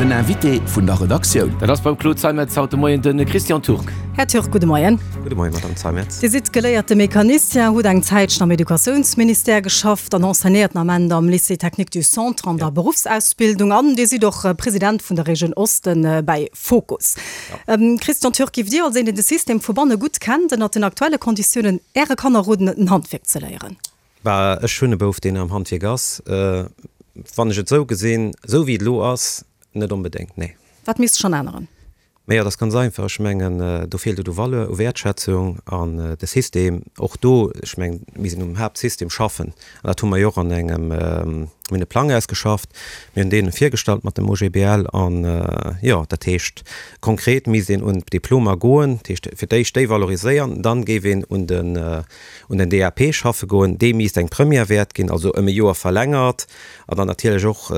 Den Invité vun der Redaktioun. Dat ass beim Claude Zeimetz haut de Moien de Christian Turk. Här Turk, gudde Moien. Gudde Moien, Madame Zeimetz. Dir sidd geléierte Mecanicien, hutt eng Zäitchen am Educatiounsministère geschafft an enseignéiert den Ament am Lycée Technique du Centre an der Beruffsausbildung an Dir sidd och President vun der Regioun Osten bäi Fokus. Christian Turk, Giff Dir als een, deen de System vu banne gutt kennt, ënnert den aktuelle Konditiounen Äre Kanner roden, en Handwierk ze léieren? Bah, ech hunn e Bouf, deen am Handwierk ass. Wann ech et esou gesinn, esou wéi et elo ass, net onbedéngt, nee. Wat misst sech dann änneren? Mä jo, dat ass ganz einfach. Ech mengen, do feelt et u Valeur, u Wäertschätzung an de System, och do, ech mengen, mir sinn um Haaptsystem schaffen an dat hu mer jo och an engem, mir hunn e Plang ausgeschafft, mir hunn deen virgestallt mat dem OGBL an, jo, dat heescht konkret misst een un d'Diplomer goen, dat heescht fir d'éischt déi valoriséieren, dann géif een un den, un den DAP schaffe goen, dee misst eng Première wäert ginn, also ëm e Joer verlängert an dann natierlech och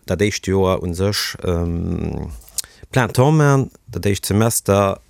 dat éischt Joer u sech plein temps man, dat éischt Semester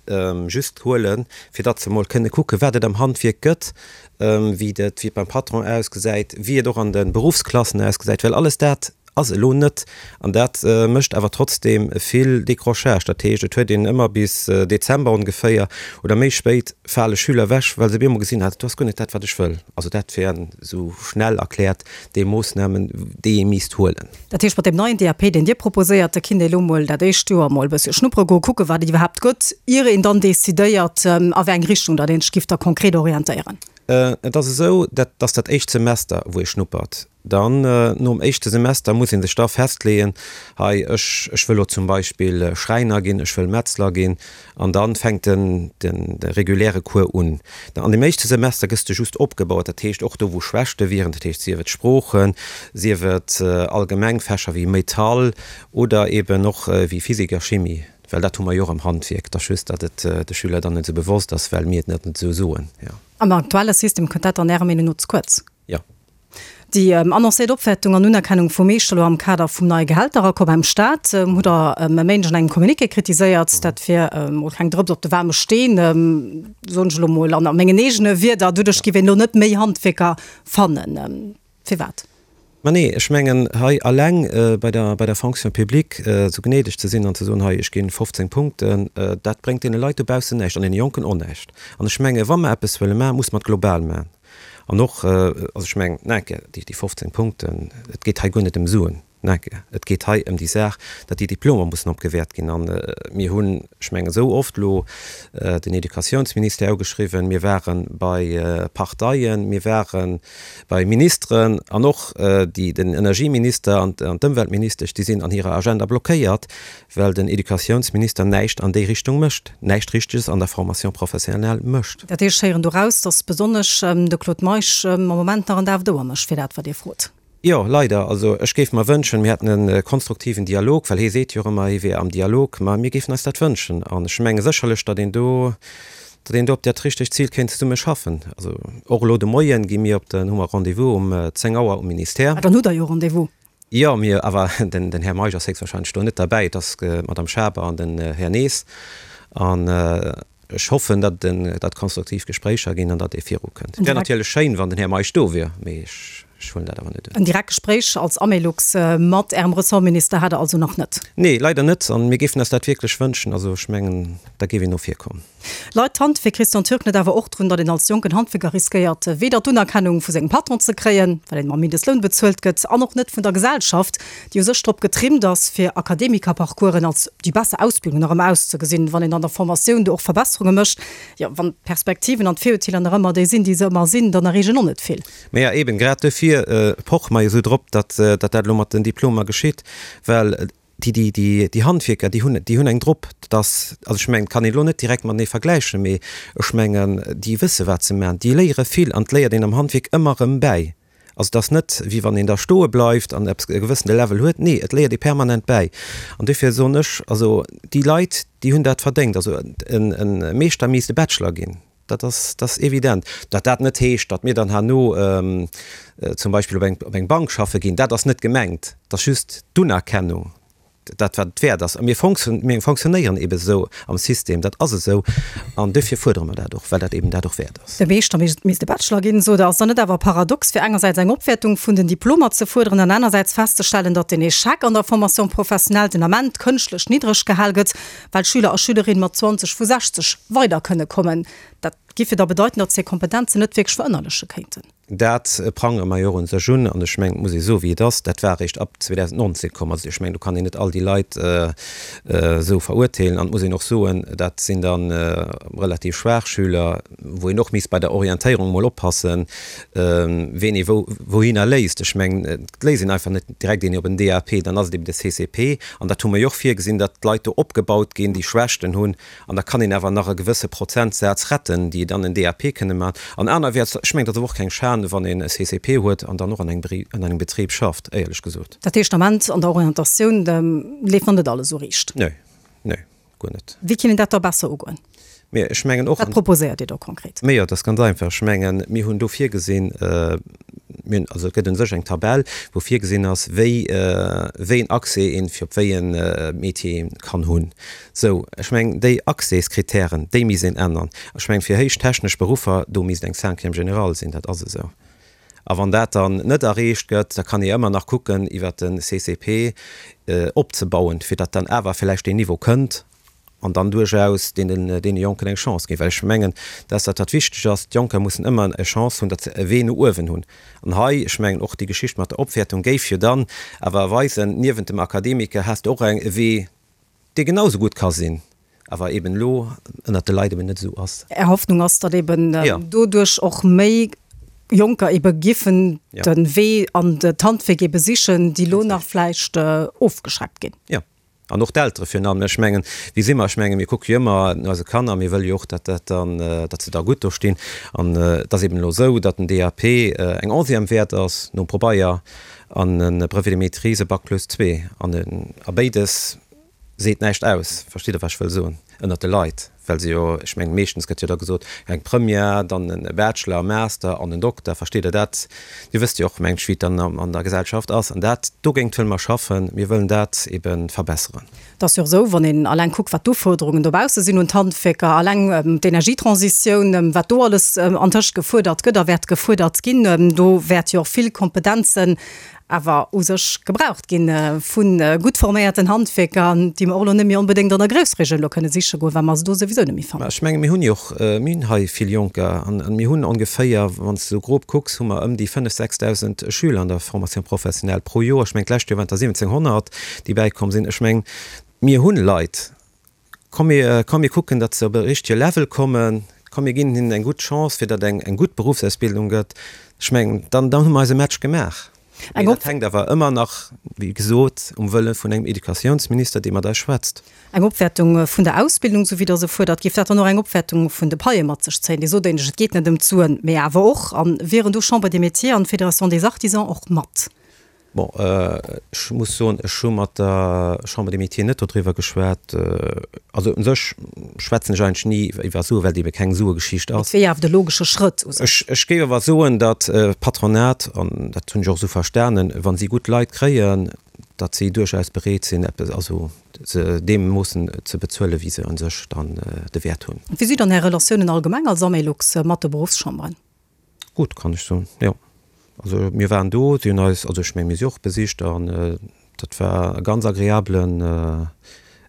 just huelen, fir datt se emol kënne kucken, wat et am Handwierk gëtt, wéi et wéi et beim Patron ausgesäit, wéi et och an de Beruffsklassen ausgesäit, well alles dat ass elo net. An dat mécht awer trotzdeem vill Décrochage. Dat heescht, et huet een ëmmer bis Dezember ongeféier oder méi spéit fale Schüler ewech, well se op eemol gesinn, ah, dat ass guer net dat, wat ech wëll. Also dat wären esou schnell erkläert déi Moossnamen, déi ee misst huelen. Dat heescht, mat deem neien DAP, deen Dir proposéiert, da kinnt ee elo mol dat éischt Joer mol e bëssche schnuppere goen, kucken, wat et iwwerhaapt gëtt, ier een dann decidéiert, a wéi eng Richtung datt een sech giff da konkret orientéieren. Et ass esou, dat ass dat éischt Semester, wou ee schnuppert. Dann, nom éischte Semester, muss ee sech da festleeën, hei, ech, ech wëll lo zum Beispill Schräiner ginn, ech wëll Metzler ginn. An da fänkt den, den, de reguläre Cours un. An deem éischte Semester gëss de just opgebaut, dat heescht och do, wou Schwächte wieren, dat heescht sief et Sproochen, sief et allgemeng Fächer wéi Metall oder eben och wéi Physik a Chimie, well dat hu mer jo och am Handwierk. Et ass just, datt et de Schüler dann net esou bewosst ass, well mir et net esou soen, jo. Am aktuelle System kënnt dat dann Ärer Meenung no ze kuerz? Jo. Déi annoncéiert Opwäertung an Unerkennung vum Meeschter elo am Kader vum neie Gehälteraccord beim Staat hutt Der e Méindeg an engem Communiqué kritiséiert. Dat wier emol keng Drëps op de waarme Steen, soen ech elo mol an mengen eegene Wierder. Doduerch géif een elo net méi Handwierker fannen. Firwat? Ma nee, ech mengen hei alleng bei der, bei der Fonction publique esou gnädeg ze sinn an ze soen, hei ech ginn 15 Punkten, dat bréngt deene Leit dobaussen näischt an deene Jonken och näischt. An ech menge wa mer eppes wëlle maachen, muss mer et global maachen. An och, also ech mengen, nake, déi 15 Punkten, et geet hei guer net ëm Suen, nake, et geet hei ëm déi Saach, datt déi Diplomer mussen opgewäert ginn. An mir hunn, ech mengen, esou oft elo den Educatiounsministère ugeschriwwen, mir ware bei Parteien, mir ware bei Ministeren an och déi, den Energieminister an d'Ëmweltministesch, déi sinn an hirer Agenda blockéiert, Well den Educatiounsminister näischt an déi Richtung mécht, näischt Richteges an der Formation professionnelle mécht. Dat heescht, ech héieren doraus, datt besonnesch de Claude Meisch am Moment nach en Daf d'Ouer mécht fir dat, wat Dir frot. Jo, leider. Also ech géif mer wënschen, mir hätten e konstruktiven Dialog, well hie seet jo och ëmmer, hie wier am Dialog. Ma mir géifen eis dat wënschen. An ech menge sécherlech, datt een do, datt een do op dat richtegt Zil kéint zesumme schaffen. Also och elo de Moien gi mir op den, hu mer Rendez-vous um 10 Auer um Ministère. Ah, dann hutt Der jo Rendez-vous. Jo, mir, awer den Här Meisch ass héchstwahrscheinlech do net derbäi, et ass d'Madame Schaber an den Här Nees. An ech hoffen, datt et konstruktiv Gespréicher ginn an datt ee virukënnt. Et wär natierlech schéin, wann den Här Meisch do wier, mee ech huelen dat awer net un. En direkt Gespréich als Amelux mat Ärem Ressortminister hat Der also nach net? Nee, leider net. An mir géifen eis dat wierklech wënschen. Also ech mengen, da géif een no vir kommen. Leit d'Handwierk Christian Türk net awer och drun, datt een als jonken Handwierker riskéiert, weder d'Unerkennung vu sengem Patron ze kréien, well een mam Mindestloun bezuelt gëtt, an och net vun der Gesellschaft, déi u sech drop getrimmt ass, fir Akademikerparcoursen als déi besser Ausbildung nach ëmmer auszegesinn, wann een an der Formatioun do och Verbesserunge mécht. Jo, wann d'Perspektiven an d'Virurteeler nach ëmmer déi sinn, déi se ëmmer sinn, dann erreecht een och net vill. Mä jo, eben grad duerfir poche mer jo esou drop, datt dat elo mat den Diplomer geschitt, well Déi, déi, déi, déi Handwierker, déi hunn, déi hunn eng drop, dass, also ech mengen, et kann een elo net direkt matenee vergläichen, mee ech mengen, déi wësse wat se maachen, déi léiere vill an et léiert een am Handwierk ëmmer erëm bäi. Also et ass net, wéi wann een da stoe bleift an eppes, e gewëssene Level huet, nee, et léiert ee permanent bäi. An duerfir soen ech, also déi Leit, déi hunn dat verdéngt. Also en, e Meeschter misst e Bachelor ginn. Dat ass, dat ass evident. Datt dat net heescht, datt mir dann herno zum Beispill op eng, op eng Bank schaffe ginn, dat ass net gemengt. Et ass just d'Unerkennung. Dat wat et wäert ass. A mir mir fonctionnéieren eebe sou am System, dat ass esou an duerfir fuerdere mer dat och, well dat eeben dat och wäert ass. De Meeschter misst e Bachelor ginn, sot Der. Ass dann net awer paradox, fir engersäits eng Opwäertung vun den Diplomer ze fuerderen an anersäits festzestellen, datt den Echec an der Formation professionnelle den Ament kënschtlech niddreg gehal gëtt, well Schüler a Schülerinne mat 20 vu 60 weider kënne kommen? Dat giff jo da bedeiten, datt se hir Kompetenzen net wierklech verënnerleche kéinten. Dat prangere mer jo och un sech un. An ech mengen, et muss ee soen, wéi et ass, dat war eréischt ab 2019 komm. Also ech mengen, do kann een net all déi Leit esou verurteelen. An et muss een och soen, dat sinn da relativ schwaach Schüler, wou een och misst bei der Orientéierung emol oppassen, ween ee wou wouhinner léisst. Ech mengen, et léisst een einfach net direkt een op en DAP, dann ass et eben de CCP. An dat hu mer jo och virgesinn, datt d'Leit do opgebaut ginn, déi Schwächten hunn, An da kann een awer nach e gewësse Prozentsaz retten, déi dann en DAP kënne maachen. An anerwäerts, ech mengen, et ass awer och keng Schan, wann een e CCP huet an dann och an engem Betrib schafft, éierlech gesot. Dat heescht, am Ament an der Orientatioun leeft nach net alles esou riicht? Nee, nee, guer net. Wéi kinnt een dat da besser ugoen? Mee ech mengen och. Wat proposéiert Dir do konkret? Mee jo, et ass ganz einfach. Ech mengen, mir hunn do virgesinn, mir hunn, also et gëtt u sech eng Tabell, wou virgesinn ass, wéi, wéi en Accès een fir op wéi e Métier ee kann hunn. Sou, ech mengen, déi Accèskritären, déi misst een ännern. Ech mengen, fir héich technesch Beruffer, do misst eng Cinquième générale sinn, dat ass esou. A wann dat dann net erreecht gëtt, da kann ee ëmmer nach kucken, iwwert de CCP opzebauen, fir datt dann awer vläicht deen Niveau kënnt an dann duerchaus deenen, deene Jonken eng Chance ginn. Well ech mengen, dat ass dat, wat wichteg ass, D'Jonker mussen ëmmer e Chance hunn, datt se e Wee no uewen hunn. An hei, ech mengen, och déi Geschicht mat der Opwäertung géif jo dann awer weisen, niewent dem Akademiker has de och eng, e Wee, dee genau esou gutt ka sinn, awer eben elo ënnert de Leit eben net esou ass. Är Hoffnung ass, datt eben doduerch och méi Jonker ebe giffen de Wee an d'Handwierk ebe sichen, déi elo nach vläicht ofgeschreckt ginn. Jo, an och d'Eltere virun allem. Ech mengen, wéi si mer? Ech mengen, mir kucke jo ëmmer no eise Kanner, mir wëlle jo och, datt dat dann, datt se da gutt do stinn. An et ass eben elo esou, datt den DAP eng Onzième wäert ass nom Probeier an e Brevet de maîtrise e Bac plus zwee. An a béides seet näischt aus, verstitt Der, wat ech wëll soen, ënnert de Leit, well se jo, ech mengen, meeschtens gëtt jo da gesot, eng Première, dann e Bachelor, e Master an en Dokter, verstitt Der dat? Dir wësst jo och, mengen ech, wéi et dann an der Gesellschaft ass. An dat, dogéint wëlle mer schaffen, mir wëllen dat ebe verbesseren. Et ass jo och esou, wann een alleng kuckt, wat d'Ufuerderungen dobausse sinn un d'Handwierker, alleng d'Energietransitioun, wat do alles antëscht gefuerdert gëtt a wäert gefuerdert ginn, do wäert jo och vill Kompetenzen awer u sech gebraucht ginn vu gutt forméierten Handwierker, déi mer och elo net méi onbedéngt an der Groussregioun elo kënne siche goen, well mer se do souwisou net méi fannen. Mä ech menge mir hunn jo och, mir hunn hei vill Jonker an mir hunn ongeféier, wann s de esou grob kucks, hu mer ëm déi 5.000, 6.000 Schüler an der Formation professionnelle pro Joer. Ech mengen d'lescht Joer waren et der 1.700, déi bäikomm sinn. Ech mengen, mir hunn Leit. Komm mir, komm mir kucken, datt se op e richtege Level kommen. Komm mir ginn hinnen eng gutt Chance, fir datt eng eng gutt Beruffsausbildung gëtt. Ech mengen, dann, dann hu mer eise Match gemaach. Mee dat hänkt awer ëmmer nach, wéi gesot, um Wëlle vun engem Educatiounsminister, dee mat eis schwätzt. Eng Opwäertung vun der Ausbildung, esou wéi Der se fuerdert, géif dat dann och eng Opwäertung vun de Paie mat sech zéien? Dir sot éinescht, et geet net ëm d'Suen, mee awer och. A wieren do Chambre des Métiers an d'Fédération des Artisans och mat? Bon, ech muss soen, ech hu mat der Chambre des Métiers net dodriwwer geschwat. Also u sech schwätzen ech eigentlech ni iwwer Suen, well et ebe keng Suegeschicht ass. Et wier awer de logesche Schrëtt u sech. Ech géif awer soen, datt d'Patronat, an dat hunn ech och esou verstanen, wa si gutt Leit kréien, datt si duerchaus bereet sinn, eppes, also se deemoossen ze bezuelen, wéi se u sech dann de Wäert hunn. Wéi si dann Är Relatiounen allgemeng als Amelux mat de Beruffschamberen? Gutt, kann ech soen, jo. Also mir waren do, si hunn eis, also ech meng mir si och besicht an dat war e ganz agreablen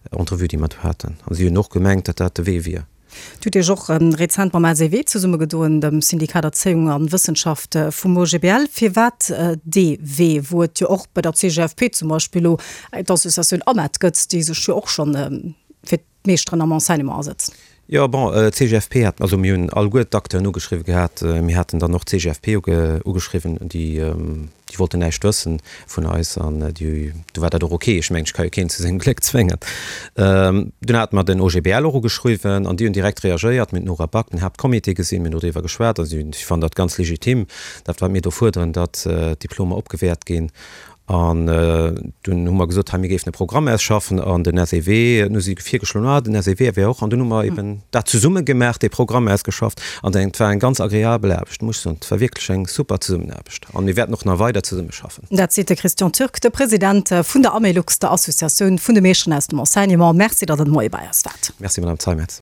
Entrevue déi mer do haten. An si hunn och gemengt, datt dat de Wee wier. Dir hutt Iech och rezent mam LCW zesummegedoen, dem Syndikat Erzéiung an Wëssenschaft vum OGBL. Firwat dee Wee, wou et jo och bei der CGFP zum Beispill elo d'Associatioun AMET gëtt, déi sech jo och schonn fir d'Meeschteren am Enseignement asëtzen. Jo, bon, d'CGFP hat, also mir hunn alleguer d'Acteuren ugeschriwwen gehat. Mir haten dann och d'CGFP ugeschriwwen, déi, déi wollten näischt wëssen vun eis an déi, du war dat och ok. Ech mengen, ech ka jo keen zu sengem Gléck zwéngen. Dunn hate mer den OGBL och ugeschriwwen an déi hunn direkt reagéiert. Mir hunn d'Nora Back, den Haaptcomité gesinn, mir hunn doriwwer geschwat a si, si fannen dat ganz legitim, dat wat mir do fuerderen, datt d'Diplomer opgewäert ginn. An dunn hu mer gesot, hei mir géifen e Programm ausschaffen an den SEW, dunn hu si virgeschloen, ah den SEW wär och, an dunn hu mer eben dat zesumme gemaach, dee Programm ausgeschafft an et war eng ganz agreabel Aarbecht, muss ech soen. Et war wierklech eng super Zesummenaarbecht an mir wäerten och nach weider zesummeschaffen. Dat seet de Christian Türk, de President vun der Amelux, der Associatioun vun de Meeschteren aus dem Enseignement. Merci, datt Der de Moie bei eis waart. Merci, Madame Zeimetz.